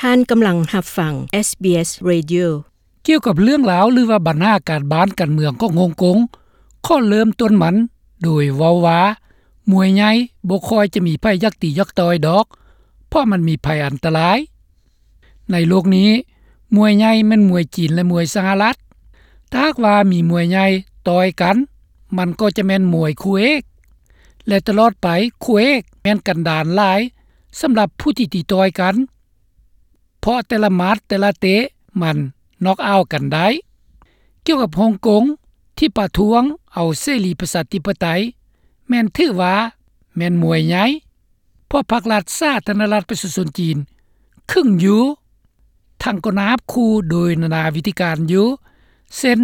ທ່ານກຳລັງຮັບຟັງ SBS Radio. ກ່ຽວກັບເລື່ອງລາວ ຫຼືວ່າບັນຫາການບ້ານການເມືອງຂອງຮົງກົງ, ຂໍເລີ່ມຕົ້ນມັນໂດຍເວົ້າວ່າ ມວຍໃຫຍ່ບໍ່ຄ່ອຍຈະມີໃຜຢາກຕີຢາກຕ່ອຍດອກ, ເພາະມັນມີໄພອັນຕະລາຍ. ໃນໂລກນີ້, ມວຍໃຫຍ່ແມ່ນມວຍຈີນ ແລະ ມວຍສະຫະລັດ. ຖ້າຫາກວ່າມີມວຍໃຫຍ່ຕ່ອຍກັນ, ມັນກໍຈະແມ່ນມວຍຄູ່ເອກ ແລະ ຕະຫຼອດໄປ, ຄູ່ເອກແມ່ນກັນດານຫຼາຍສຳລັບຜູ້ທີ່ຕີຕ່ອຍກັນ, ເພາະແຕ່ລະໝັດແຕ່ລະເຕະມັນນັອກເອົາກັນໄດ້. ກ່ຽວກັບຮົງກົງທີ່ປະທ້ວງເອົາເສລີປະຊາທິປະໄຕ ແມ່ນຖືວ່າແມ່ນມວຍໃຫຍ່, ເພາະພັກລັດສາທາລະນະລັດປະຊາຊົນຈີນ ຄຶງຢູ່, ທັງກໍນາບຂູ່ໂດຍນານາວິທີການຢູ່, ເຊັ່ນ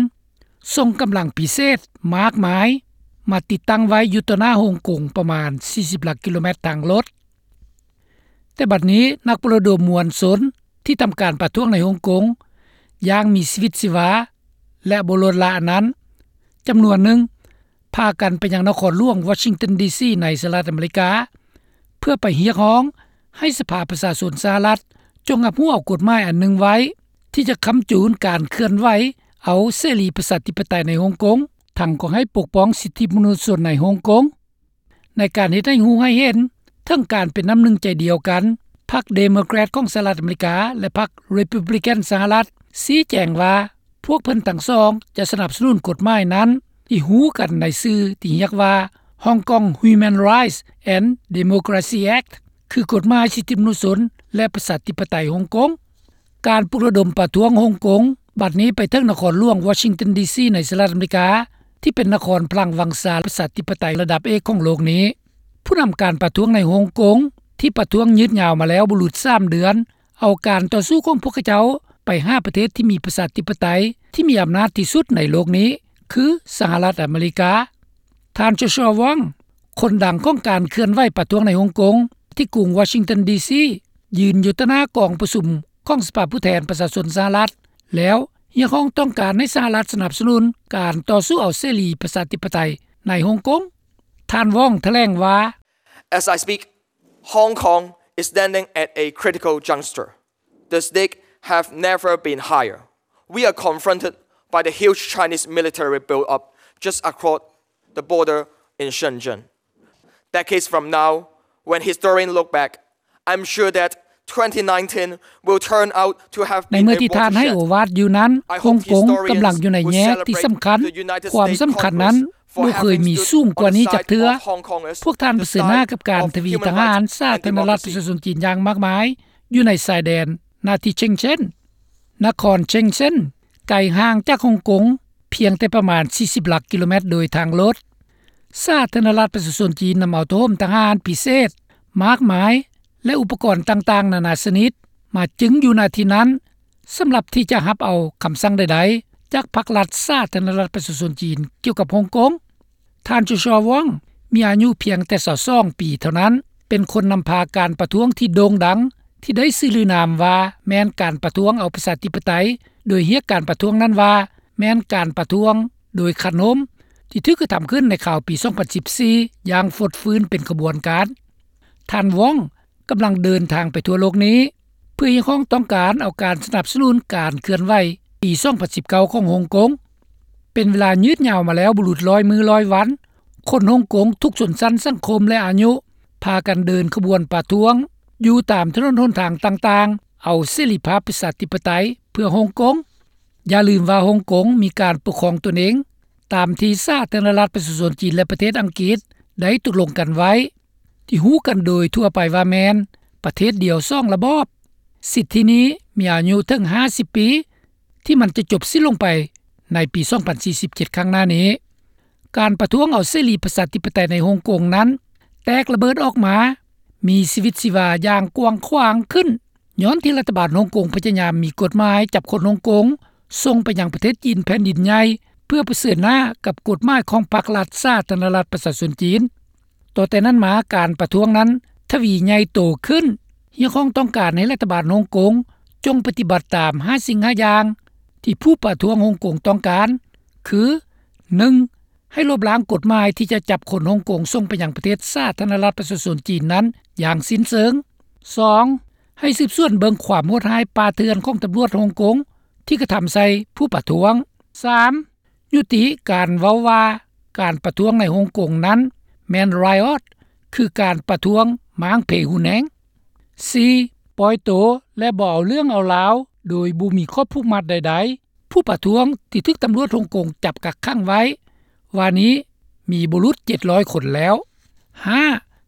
ສົ່ງກຳລັງພິເສດມາກມາຍມາຕິດຕັ້ງໄວ້ຢູ່ຕໍ່ໜ້າຮົງກົງປະມານສີ່ສິບຫຼັກກິໂລແມັດທາງລົດ. ແຕ່ບັດນີ້ນັກປະລະດົມມວນຊົນທີ່ທຳການປະທ້ວງໃນຮົງກົງຢ່າງມີຊີວິດຊີວາ ແລະ ບໍ່ລົດລະອັນນັ້ນ ຈຳນວນໜຶ່ງພາກັນໄປຍັງນະຄອນຫຼວງວໍຊິງຕັນ ດີຊີ ໃນສະຫະລັດອາເມລິກາ ເພື່ອໄປຮຽກຮ້ອງໃຫ້ສະພາປະຊາຊົນສະຫະລັດຈົ່ງຮັບຮູ້ເອົາກົດໝາຍອັນໜຶ່ງໄວ້ ທີ່ຈະຄ້ຳຈູນການເຄື່ອນໄຫວເອົາເສລີປະຊາທິປະໄຕໃນຮົງກົງ, ທັງກໍໃຫ້ປົກປ້ອງສິດທິມະນຸດຊົນໃນຮົງກົງ. ໃນການເຮັດໃຫ້ຮູ້ໃຫ້ເຫັນເຖິງການເປັນນ້ຳໜຶ່ງໃຈດຽວກັນ, ພັກເດໂມແຄຣດຂອງສະຫະລັດອາເມລິກາ ແລະ ພັກຣີພັບລິກັນສະຫະລັດ ຊີ້ແຈງວ່າ ພວກເພິ່ນທັງສອງຈະສະໜັບສະໜູນກົດໝາຍນັ້ນ ທີ່ຮູ້ກັນໃນຊື່ທີ່ຮຽກວ່າ Hong Kong Human Rights and Democracy Act ຄືກົດໝາຍສິດທິມະນຸດຊົນ ແລະ ປະຊາທິປະໄຕຮົງກົງ. ການປຸກລະດົມປະທ້ວງຮົງກົງ ບັດນີ້ໄປເຖິງນະຄອນຫຼວງວໍຊິງຕັນ ດີຊີ ໃນສະຫະລັດອາເມລິກາ ທີ່ເປັນນະຄອນພລັງວັງຊາປະຊາທິປະໄຕລະດັບເອກຂອງໂລກນີ້. ຜູ້ນຳການປະທ້ວງໃນຮົງກົງ ທີ່ປະທ້ວງຍືດຍາວມາແລ້ວບໍ່ຫຼຸດສາມເດືອນ ເອົາການຕໍ່ສູ້ຂອງພວກເຂົາເຈົ້າໄປຫາປະເທດທີ່ມີປະຊາທິປະໄຕທີ່ມີອຳນາດທີ່ສຸດໃນໂລກນີ້ ຄື ສະຫະລັດອາເມລິກາ. ທ່ານ ໂຈຊວາ ວອງ ຄົນດັງຂອງການເຄື່ອນໄຫວປະທ້ວງໃນຮົງກົງ ທີ່ກຸງວໍຊິງຕັນ ດີຊີ ຢືນຢູ່ຕໍ່ໜ້າກອງປະຊຸມຂອງສະພາຜູ້ແທນປະຊາຊົນສະຫະລັດ ແລ້ວຮຽກຮ້ອງຕ້ອງການໃຫ້ສະຫະລັດສະໜັບສະໜູນການຕໍ່ສູ້ເອົາເສລີປະຊາທິປະໄຕໃນຮົງກົງ. ທ່ານ ວອງ ຖະແຫຼງວ່າ As I speak, Hong Kong is standing at a critical juncture. The stakes have never been higher. We are confronted by the huge Chinese military build-up just across the border in Shenzhen. Decades from now, when historians look back, I'm sure that twenty nineteen will turn out to have been a watershed. ໃນເມື່ອທີ່ທ່ານໃຫ້ໂອວາດຢູ່ນັ້ນ, ຮົງກົງກຳລັງຢູ່ໃນແຍກທີ່ສຳຄັນ. ຄວາມສຳຄັນນັ້ນບໍ່ເຄີຍມີສູງກວ່ານີ້ຈັກເທື່ອ. ພວກທ່ານປະເຊີນໜ້າກັບການທະວີທະຫານສາທາລະນະລັດປະຊາຊົນຈີນຢ່າງມາກມາຍ ຢູ່ໃນຊາຍແດນນາທີ່ເຊັງເຊັນ. ນະຄອນເຊັງເຊັນໄກຫ່າງຈາກຮົງກົງພຽງແຕ່ປະມານສີ່ສິບຫຼັກກິໂລແມັດໂດຍທາງລົດ. ສາທາລະນະລັດປະຊາຊົນຈີນນຳເອົາໂທໂຮມທະຫານພິເສດມາກມາຍ ແລະ ອຸປະກອນຕ່າງໆນານາຊະນິດມາຈຶງຢູ່ນະທີ່ນັ້ນ ສຳລັບທີ່ຈະຮັບເອົາຄຳສັ່ງໃດໆຈາກພັກລັດສາທາລະນະລັດປະຊາຊົນຈີນກ່ຽວກັບຮົງກົງ. ທ່ານ ໂຈຊວາ ວອງ ມີອາຍຸພຽງແຕ່ຊາວສອງປີເທົ່ານັ້ນ, ເປັນຄົນນຳພາການປະທ້ວງທີ່ໂດ່ງດັງ ທີ່ໄດ້ຊື່ລືນາມວ່າແມ່ນການປະທ້ວງເອົາປະຊາທິປະໄຕ, ໂດຍຮຽກການປະທ້ວງນັ້ນວ່າແມ່ນການປະທ້ວງໂດຍຂະໜົມ ທີ່ຖືກກະທຳຂຶ້ນໃນຄາວປີສອງພັນສິບສີ່ຢ່າງຟົດຟື້ນເປັນຂະບວນການ. ທ່ານ ວອງ ກຳລັງເດີນທາງໄປທົ່ວໂລກນີ້ ເພື່ອຮຽກຮ້ອງຕ້ອງການເອົາການສະໜັບສະໜູນການເຄື່ອນໄຫວປີສອງພັນສິບເກົ້າຂອງຮົງກົງ. ເປັນເວລາຍືດຍາວມາແລ້ວບໍ່ຫຼຸດຮ້ອຍມື້ຮ້ອຍວັນ, ຄົນຮົງກົງທຸກຊົນຊັ້ນສັງຄົມ ແລະ ອາຍຸ ພາກັນເດີນຂະບວນປະທ້ວງຢູ່ຕາມຖະໜົນຫົນທາງຕ່າງໆ ເອົາເສລີພາບປະຊາທິປະໄຕເພື່ອຮົງກົງ. ຢ່າລືມວ່າຮົງກົງມີການປົກຄອງຕົນເອງ ຕາມທີ່ສາທາລະນະລັດປະຊາຊົນຈີນ ແລະ ປະເທດອັງກິດໄດ້ຕົກລົງກັນໄວ້ ທີ່ຮູ້ກັນໂດຍທົ່ວໄປວ່າແມ່ນປະເທດດຽວສອງລະບອບ. ສິດທິນີ້ມີອາຍຸເຖິງຫ້າສິບປີ ທີ່ມັນຈະຈົບສິ້ນລົງໄປໃນປີສອງພັນສີ່ສິບເຈັດຂ້າງໜ້ານີ້. ການປະທ້ວງເອົາເສລີປະຊາທິປະໄຕໃນຮົງກົງນັ້ນແຕກລະເບີດອອກມາ ມີຊີວິດຊີວາຢ່າງກວ້າງຂວາງຂຶ້ນ ຍ້ອນທີ່ລັດຖະບານຮົງກົງພະຍາຍາມມີກົດໝາຍຈັບຄົນຮົງກົງ ສົ່ງໄປຍັງປະເທດຈີນແຜ່ນດິນໃຫຍ່ ເພື່ອປະເຊີນໜ້າກັບກົດໝາຍຂອງພັກລັດສາທາລະນະລັດປະຊາຊົນຈີນ. ຕໍ່ແຕ່ນັ້ນມາ, ການປະທ້ວງນັ້ນທະວີໃຫຍ່ໂຕຂຶ້ນ, ຮຽກຮ້ອງຕ້ອງການໃຫ້ລັດຖະບານຮົງກົງຈົ່ງປະຕິບັດຕາມຫ້າສິ່ງຫ້າຢ່າງທີ່ຜູ້ປະທ້ວງຮົງກົງຕ້ອງການ, ຄື ໜຶ່ງ ໃຫ້ລົບລ້າງກົດໝາຍທີ່ຈະຈັບຄົນຮົງກົງສົ່ງໄປຍັງປະເທດສາທາລະນະລັດປະຊາຊົນຈີນນັ້ນຢ່າງສິ້ນເຊີງ. ສອງ ໃຫ້ສືບສວນເບິ່ງຄວາມໂຫດຮ້າຍປ່າເຖື່ອນຂອງຕຳຫຼວດຮົງກົງທີ່ກະທຳໃສ່ຜູ້ປະທ້ວງ. ສາມ ຍຸຕິການເວົ້າວ່າການປະທ້ວງໃນຮົງກົງນັ້ນແມ່ນ riot ຄືການປະທ້ວງມ້າງເພຮຸນແຮງ. ສີ່ ປ່ອຍໂຕ ແລະ ບໍ່ເອົາເລື່ອງເອົາລາວໂດຍບໍ່ມີຂໍ້ຜູກມັດໃດໆ. ຜູ້ປະທ້ວງທີ່ຖືກຕຳຫຼວດຮົງກົງຈັບກັກຂັງໄວ້ ວ່ານີ້ມີບໍ່ຫຼຸດເຈັດຮ້ອຍຄົນແລ້ວ. ຫ້າ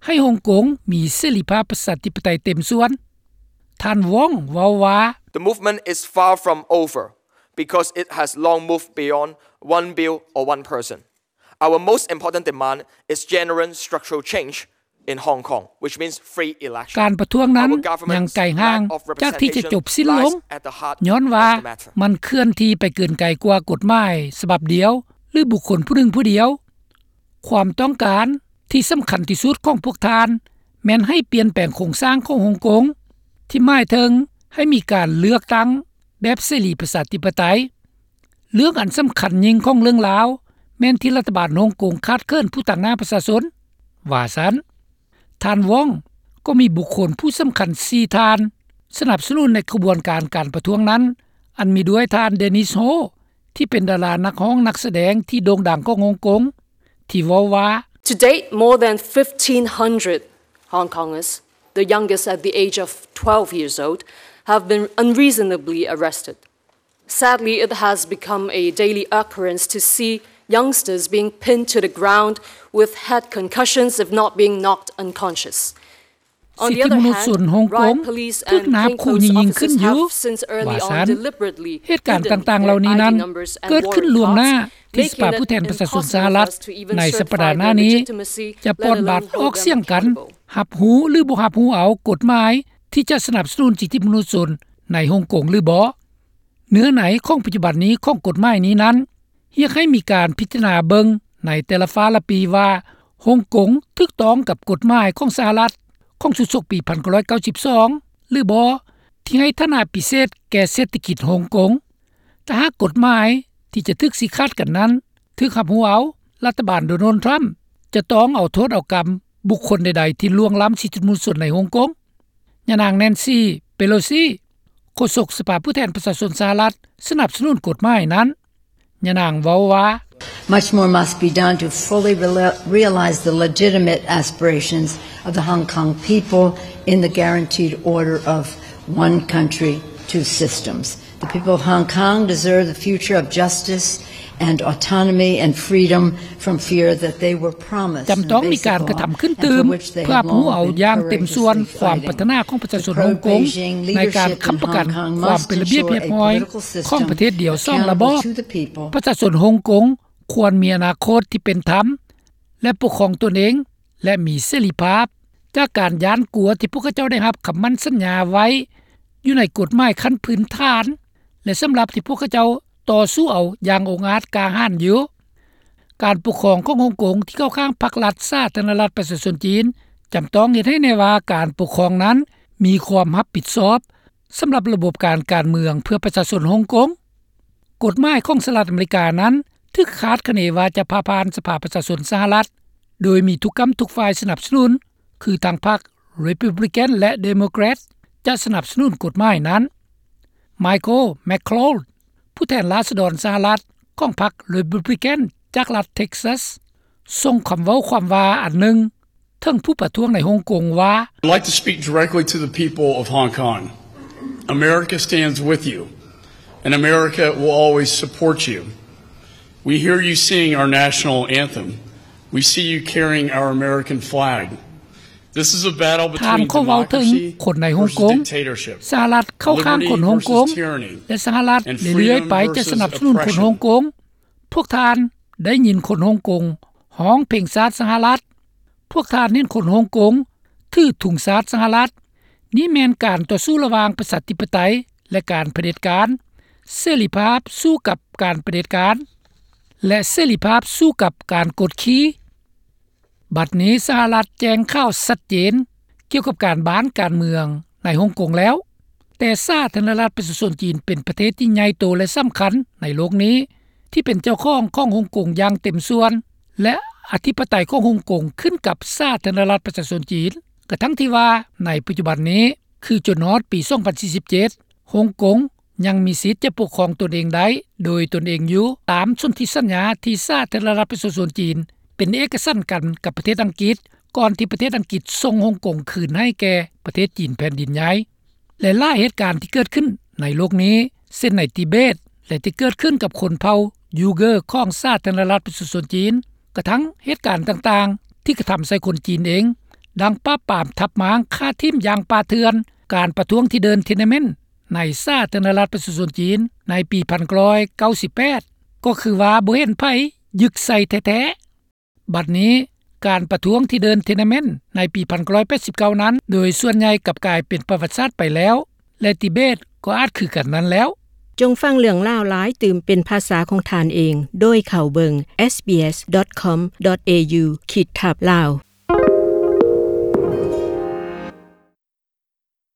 ໃຫ້ຮົງກົງມີເສລີພາບປະຊາທິປະໄຕເຕັມສ່ວນ. ທ່ານ Wong ເວົ້າວ່າ The movement is far from over because it has long moved beyond one bill or one person. Our most important demand is genuine structural change in Hong Kong, which means free election. ການປະທ້ວງນັ້ນຍັງໄກຫ່າງຈາກທີ່ຈະຈົບສິ້ນລົງ ຍ້ອນວ່າມັນເຄື່ອນທີ່ໄປເກີນໄກກວ່າກົດໝາຍສະບັບດຽວ ຫຼື ບຸກຄົນຜູ້ໜຶ່ງຜູ້ດຽວ. ຄວາມຕ້ອງການທີ່ສຳຄັນທີ່ສຸດຂອງພວກທ່ານ ແມ່ນໃຫ້ປ່ຽນແປງໂຄງສ້າງຂອງຮົງກົງ ທີ່ໝາຍເຖິງໃຫ້ມີການເລືອກຕັ້ງແບບເສລີປະຊາທິປະໄຕ. ເລື່ອງອັນສຳຄັນຍິ່ງຂອງເລື່ອງລາວ ແມ່ນທີ່ລັດຖະບານຮົງກົງຂາດເຂີນຜູ້ຕາງໜ້າປະຊາຊົນ, ວ່າຊັ້ນ. ທ່ານ Wong ກໍມີບຸກຄົນຜູ້ສຳຄັນສີ່ທ່ານ ສະໜັບສະໜູນໃນຂະບວນການການປະທ້ວງນັ້ນ, ອັນມີດ້ວຍທ່ານ Dennis Ho ທີ່ເປັນດາລານັກຮ້ອງນັກສະແດງທີ່ໂດ່ງດັງຂອງຮົງກົງ ທີ່ເວົ້າວ່າ To date, more than fifteen hundred Hong Kongers, the youngest at the age of twelve years old, have been unreasonably arrested. Sadly, it has become a daily occurrence to see youngsters being pinned to the ground with head concussions, if not being knocked unconscious. ສິດທິມະນຸດຊົນຮົງກົງຖືກນາບຂູ່ຍິງຂຶ້ນຢູ່ ວ່າຊັ້ນ. ເຫດການຕ່າງໆເຫຼົ່ານີ້ນັ້ນເກີດຂຶ້ນລ່ວງໜ້າທີ່ສະພາຜູ້ແທນປະຊາຊົນສະຫະລັດ ໃນສັບປະດາໜ້ານີ້ຈະປ່ອນບັດອອກສຽງກັນ ຮັບຮູ້ ຫຼື ບໍ່ຮັບຮູ້ເອົາກົດໝາຍທີ່ຈະສະໜັບສະໜູນສິດທິມະນຸດຊົນໃນຮົງກົງ ຫຼື ບໍ່. ເນື້ອໃນຂອງປັດຈຸບັນນີ້ຂອງກົດໝາຍນີ້ນັ້ນ ຮຽກໃຫ້ມີການພິຈາລະນາເບິ່ງໃນແຕ່ລະຟ້າລະປີວ່າ ຮົງກົງຖືກຕ້ອງກັບກົດໝາຍຂອງສະຫະລັດຂອງຊຸດສົກປີໜຶ່ງພັນເກົ້າຮ້ອຍເກົ້າສິບສອງ ຫຼື ບໍ່ ທີ່ໃຫ້ຖານະພິເສດແກ່ເສດຖະກິດຮົງກົງ. ຖ້າຫາກກົດໝາຍທີ່ຈະຖືກຊີ້ຂາດກັນນັ້ນຖືກຮັບຮູ້ເອົາ, ລັດຖະບານໂດນັລ ທຣຳ ຈະຕ້ອງເອົາໂທດເອົາກຳບຸກຄົນໃດໆທີ່ລ່ວງລ້ຳສິດທິມະນຸດຊົນໃນຮົງກົງ. ຍານາງ ແນນຊີ ເປໂລຊີ ໂຄສົກສະພາຜູ້ແທນປະຊາຊົນສະຫະລັດ ສະໜັບສະໜູນກົດໝາຍນັ້ນ. ຍານາງເວົ້າວ່າ Much more must be done to fully reali-, realize the legitimate aspirations of the Hong Kong people in the guaranteed order of one country, two systems. The people of Hong Kong deserve the future of justice and autonomy and freedom from fear that they were promised ຈຳຕ້ອງມີການກະທຳຂຶ້ນຕື່ມ ເພື່ອຮັບຮູ້ເອົາຢ່າງເຕັມສ່ວນຄວາມປາດຖະໜາຂອງປະຊາຊົນຮົງກົງ ໃນການຄ້ຳປະກັນຄວາມເປັນລະບຽບຮຽບຮ້ອຍຂອງປະເທດດຽວສອງລະບອບ. ປະຊາຊົນຮົງກົງຄວນມີອະນາຄົດທີ່ເປັນທຳ ແລະ ປົກຄອງຕົນເອງ ແລະ ມີເສລີພາບ ຈາກການຢ້ານກົວທີ່ພວກເຂົາເຈົ້າໄດ້ຮັບຄຳໝັ້ນສັນຍາໄວ້ຢູ່ໃນກົດໝາຍຂັ້ນພື້ນຖານ ແລະ ສຳລັບທີ່ພວກເຂົາເຈົ້າຕໍ່ສູ້ເອົາຢ່າງອົງອາດກ້າຫານຢູ່. ການປົກຄອງຂອງຮົງກົງທີ່ເຂົ້າຂ້າງພັກລັດສາທາລະນະລັດປະຊາຊົນຈີນ ຈຳຕ້ອງເຮັດໃຫ້ແນ່ວ່າການປົກຄອງນັ້ນມີຄວາມຮັບຜິດຊອບ ສຳລັບລະບົບການການເມືອງເພື່ອປະຊາຊົນຮົງກົງ. ກົດໝາຍຂອງສະຫະລັດອາເມລິການັ້ນຖືກຄາດຄະເນວ່າຈະຜ່າຜ່ານສະພາປະຊາຊົນສະຫະລັດ ໂດຍມີທຸກກ້ຳທຸກຝ່າຍສະໜັບສະໜູນ ຄືທັງພັກ Republican ແລະ Democrat ຈະສະໜັບສະໜູນກົດໝາຍນັ້ນ. ໄມເຄິນ ແມັກໂຄລ ຜູ້ແທນລາຊະດອນສະຫະລັດຂອງພັກ Republican ຈາກລັດ Texas ສົ່ງຄຳເວົ້າຄວາມວ່າອັນໜຶ່ງ ເຖິງຜູ້ປະທ້ວງໃນຮົງກົງວ່າ I'd like to speak directly to the people of Hong Kong. America stands with you, and America will always support you. We hear you sing our national anthem. We see you carrying our American flag. This is a battle between democracy versus dictatorship, liberty versus tyranny, and freedom versus oppression. ທ່ານເວົ້າເຖິງຄົນໃນຮົງກົງ ສະຫະລັດເຂົ້າຂ້າງຄົນຮົງກົງ ແລະ ສະຫະລັດເລື້ອຍໆໄປຈະສະໜັບສະໜູນຄົນຮົງກົງ. ພວກທ່ານໄດ້ຍິນຄົນຮົງກົງຮ້ອງເພງຊາດສະຫະລັດ. ພວກທ່ານເຫັນຄົນຮົງກົງຖືທຸງຊາດສະຫະລັດ. ນີ້ແມ່ນການຕໍ່ສູ້ລະຫວ່າງປະຊາທິປະໄຕ ແລະ ການຜະເດັດການ, ເສລີພາບສູ້ກັບການຜະເດັດການ ແລະ ເສລີພາບສູ້ກັບການກົດຂີ່. ບັດນີ້ສະຫະລັດແຈ້ງຂ່າວຊັດເຈນກ່ຽວກັບການບ້ານການເມືອງໃນຮົງກົງແລ້ວ, ແຕ່ສາທາລະນະລັດປະຊາຊົນຈີນເປັນປະເທດທີ່ໃຫຍ່ໂຕ ແລະ ສຳຄັນໃນໂລກນີ້ ທີ່ເປັນເຈົ້າຂອງຂອງຮົງກົງຢ່າງເຕັມສ່ວນ ແລະ ອະທິປະໄຕຂອງຮົງກົງຂຶ້ນກັບສາທາລະນະລັດປະຊາຊົນຈີນ, ກະທັ່ງທີ່ວ່າໃນປັດຈຸບັນນີ້ ຄືຈົນຮອດປີ 2047 ຮົງກົງຍັງມີສິດຈະປົກຄອງຕົນເອງໄດ້ໂດຍຕົນເອງຢູ່ ຕາມສົນທິສັນຍາທີ່ສາທາລະນະລັດປະຊາຊົນຈີນ ເປັນເອກະສັນກັນກັບປະເທດອັງກິດ ກ່ອນທີ່ປະເທດອັງກິດສົ່ງຮົງກົງຄືນໃຫ້ແກ່ປະເທດຈີນແຜ່ນດິນໃຫຍ່. ແລະຫຼາຍເຫດການທີ່ເກີດຂຶ້ນໃນໂລກນີ້ ເຊັ່ນໃນຕິເບດ ແລະທີ່ເກີດຂຶ້ນກັບຊົນເຜົ່າຢູເກີຂອງສາທາລະນະລັດປະຊາຊົນຈີນ ກະທັ່ງເຫດການຕ່າງໆ ທີ່ກະທຳໃສ່ຄົນຈີນເອງ ດັ່ງປາບປາມທັບມ້າງຂ້າຖິ້ມຢ່າງປ່າເຖື່ອນ, ການປະທ້ວງທີ່ເດີນທຽນນະເມັນໃນສາທາລະນະລັດປະຊາຊົນຈີນໃນປີ 1998 ກໍຄືວ່າບໍ່ເຫັນໃຜຍຶກໃສ່ແທ້ໆ. ບັດນີ້ການປະທ້ວງທີ່ເດີນທຽນນະເມັນໃນປີ 1989 ນັ້ນ ໂດຍສ່ວນໃຫຍ່ກັບກາຍເປັນປະຫວັດສາດໄປແລ້ວ ແລະຕິເບດກໍອາດຄືກັນນັ້ນແລ້ວ. ຈົ່ງຟັງເລື່ອງລາວຫຼາຍຕື່ມເປັນພາສາຂອງທ່ານເອງ ໂດຍເຂົ້າເບິ່ງ sbs.com.au/lawStudio